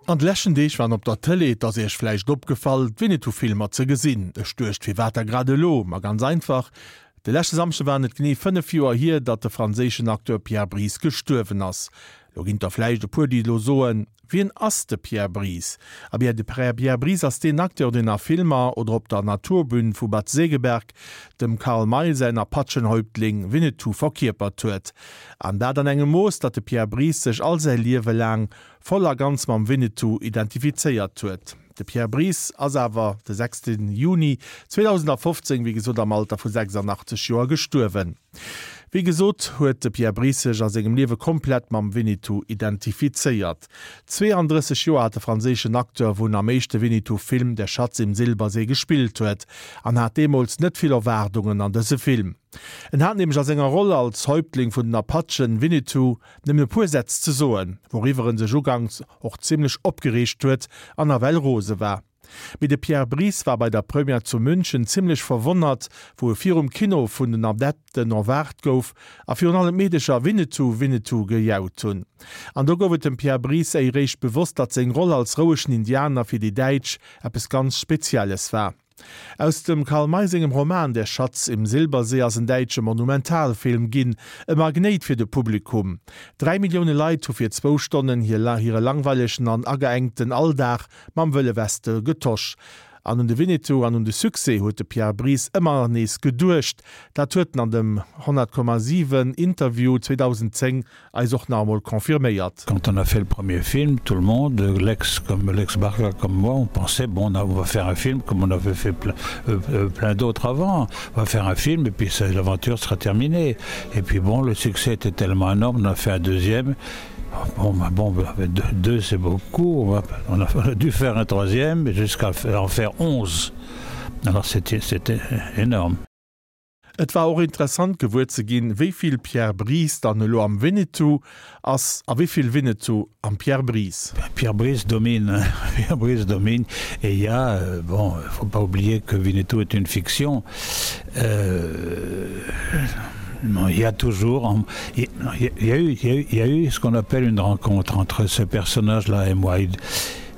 An de leschten Deeg waren op der Tëlee, et ass iech vläicht opgefall, d'Winnetou-Filmer ze gesinn. Ech duecht, firwat da grad elo? Ma ganz einfach, de leschte Samschde waren et genee 5 Joer hier, datt de franséischen Acteur Pierre Brice gestuerwen ass. Lo ginn et der vläicht e puer, déi elo soen, Wien ass de Pierre Brice? A bien, de Pierre Brice ass deen Acteur, deen a Filmer oder op der Naturbühn vu Bad Segeberg dem Karl May säin Apachenhäuptling Winnetou verkierpert huet. An dat an engem Mooss, datt de Pierre Brice sech all säi Liewe laang voll a ganz mam Winnetou identifizéiert huet. De Pierre Brice ass awer de 6 Juni 2015, wéi gesot am Alter vu 86 Joer gestuerwen. Wéi gesot huet de Pierre Brice sech a sengem Liewe komplett mam Winnetou identifizéiert. 32 Joer hat de franséischen Acteur, wou en am éischte Winnetou-Film Der Schatz im Silbersee gespillt huet, an hat deemools net vill Erwaardungen an dëse Film. En hat nämlech a senger Roll als Häuptling vun den Apachen, Winnetou, Nëmmen e puer Sätz ze soen, wouriwwer en sech uganks och zimlech opgereegt huet an nawell rose war. Mee de Pierre Brice war bei der Première zu München zimlech verwonnert, wou e virum Kino vun den Adepten erwaart gouf a virun allem d'Meedecher Winnetou, Winnetou gejaut hunn. An do gouf et dem Pierre Brice éiréischt bewosst, datt seng Roll als rouegen Indianer fir déi Däitsch eppes ganz Spezielles war. Aus dem Karl May sengem Roman Der Schatz im Silbersee ass en däitsche Monumentalfilm ginn, e Magnéit fir de Publikum. 3 Millioune Leit hu fir zwou Stonnen hire langweilegen an ageengten Alldag mam Wëlle Weste getosch. An un de Winnetou an un de Succès huet de Pierre Brice ëmmer nees geduecht. Dat huet en an dem 100,7 Interview 2010 eis och nach emol confirméiert. Quand on a fait le premier film, tout le monde, l'ex comme l'ex Barca comme moi, on pensait bon on va faire un film comme on avait fait plein, euh, euh, plein d'autres avant, on va faire un film et puis l'aventure sera terminée. Et puis bon, le succès était tellement énorme, on a fait un deuxième. Bon, bah, bon bah, deux, deux c'est beaucoup, on, va, on, a, on a dû faire un troisième jusqu'à en faire 11. Alors c'était énorme. Et war och interessant gewuer ze ginn, wéi vill Pierre Brice dann elo am Winnetou ass a wéi vill Winnetou am Pierre Brice. Pierre Brice domine, Pierre Brice domine et il y a, bon, il faut pas oublier que Winnetou est une fiction, euh, il y a toujours, il y a eu, il y a eu ce qu'on appelle une rencontre entre ce personnage-là et moi.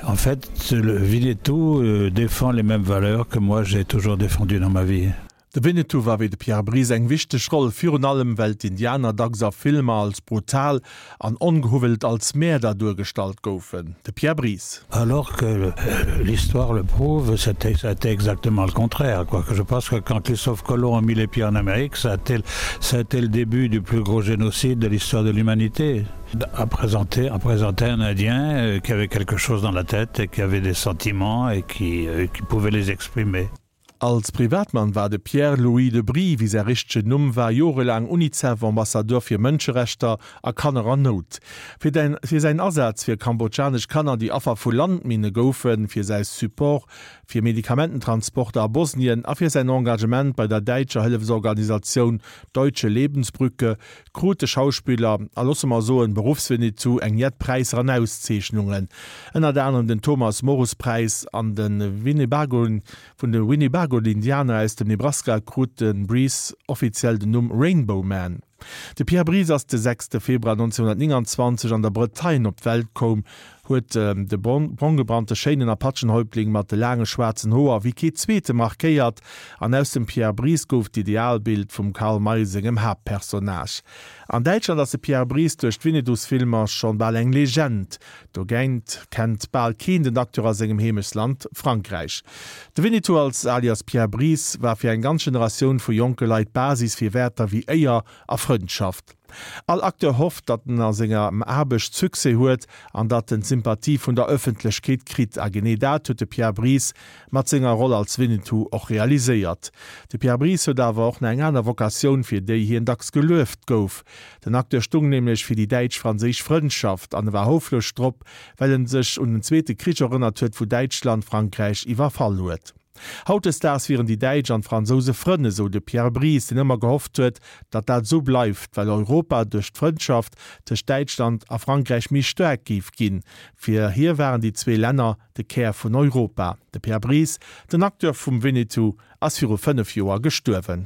En fait, le Winnetou défend les mêmes valeurs que moi j'ai toujours défendu dans ma vie. De Winnetou war wéi de Pierre Brice eng wichteg Roll, virun allem well d'Indianer dacks a Filmer als brutal an ongehuwwelt als Mäerder duergestallt goufen. De Pierre Brice. Alors que l'histoire le prouve, c'était, ça a été exactement le contraire, quoi. Je pense que quand Christophe Colomb a mis les pieds en Amérique, ça a été, ça a été le début du plus gros génocide de l'histoire de l'humanité. À présenter, à présenter un Indien qui avait quelque chose dans la tête et qui avait des sentiments et qui, qui pouvait les exprimer. Als Privatmann war de Pierre Louis de Brie, wéi säi richtegen Numm war, jorelaang Unicef-Ambassadeur fir Mënscherechter a Kanner an Nout. Fir fir säin Asaz fir kambodschanesch Kanner, déi Affer vu Landminne goufen, fir säi Support fir Medikamententransporter a Bosnien a fir säin Engagement bei der däitscher Hëllefsorganisatioun Deutsche Lebensbrücke krut de Schauspiller, a loosse mer soen Beruffswinnetou, eng jett Präisser an Auszeechnungen, ënnert anerem den Thomas-Morus-Präis an de Winnebago. Vun de Winnebago-Indianer aus dem Nebraska krut de Brice offiziell den Numm Rainbow Man. De Pierre Brice ass de 6 Februar 1929 an der Bretagne op d'Welt koum, huet de bronggebrannte schéinen Apachenhäuptling mat de laange schwaarzen Hoer wéi kee zweete markéiert an aus dem Pierre Brice gouf d'Idealbild vum Karl May sengem Haaptpersonnage. An Däitschland ass de Pierre Brice duerch d'Winnedus-Filmer schonn bal eng Legend, dogéint kennt bal keen den Acteur a sengem Heemechtsland Frankräich. De Winnetou als alias Pierre Brice war fir eng ganz Generatioun vu jonke Leit d'Basis fir Wäerter wéi Éier a Frëndschaft. All Acteur hofft, datt en a senger Aarbecht Succès huet an datt en d'Sympathie vun der Ëffentlechkeet kritt. A genee dat huet de Pierre Brice mat senger Roll als Winnetou och realiséiert. De Pierre Brice huet awer och nach eng aner Vocatioun, fir déi hien dacks gelueft gouf. Den Acteur stung nämlech fir déi däitsch-franséisch Frëndschaft an e war houfreg drop, well en sech un den Zweete Krich erënnert huet, wou Däitschland Frankräich iwwerfall huet. Hautdesdaags wieren déi Däitsch an d'Fransouse Frënn, esou de Pierre Brice, deen ëmmer gehofft huet, datt dat esou bleift, well Europa duerch d'Frëndschaft tëscht Däitschland a Frankräich méi staark géif ginn. Fir hie waren déi zwee Länner de Kär vun Europa. De Pierre Brice, den Acteur vum Winnetou, ass viru 5 Joer gestuerwen.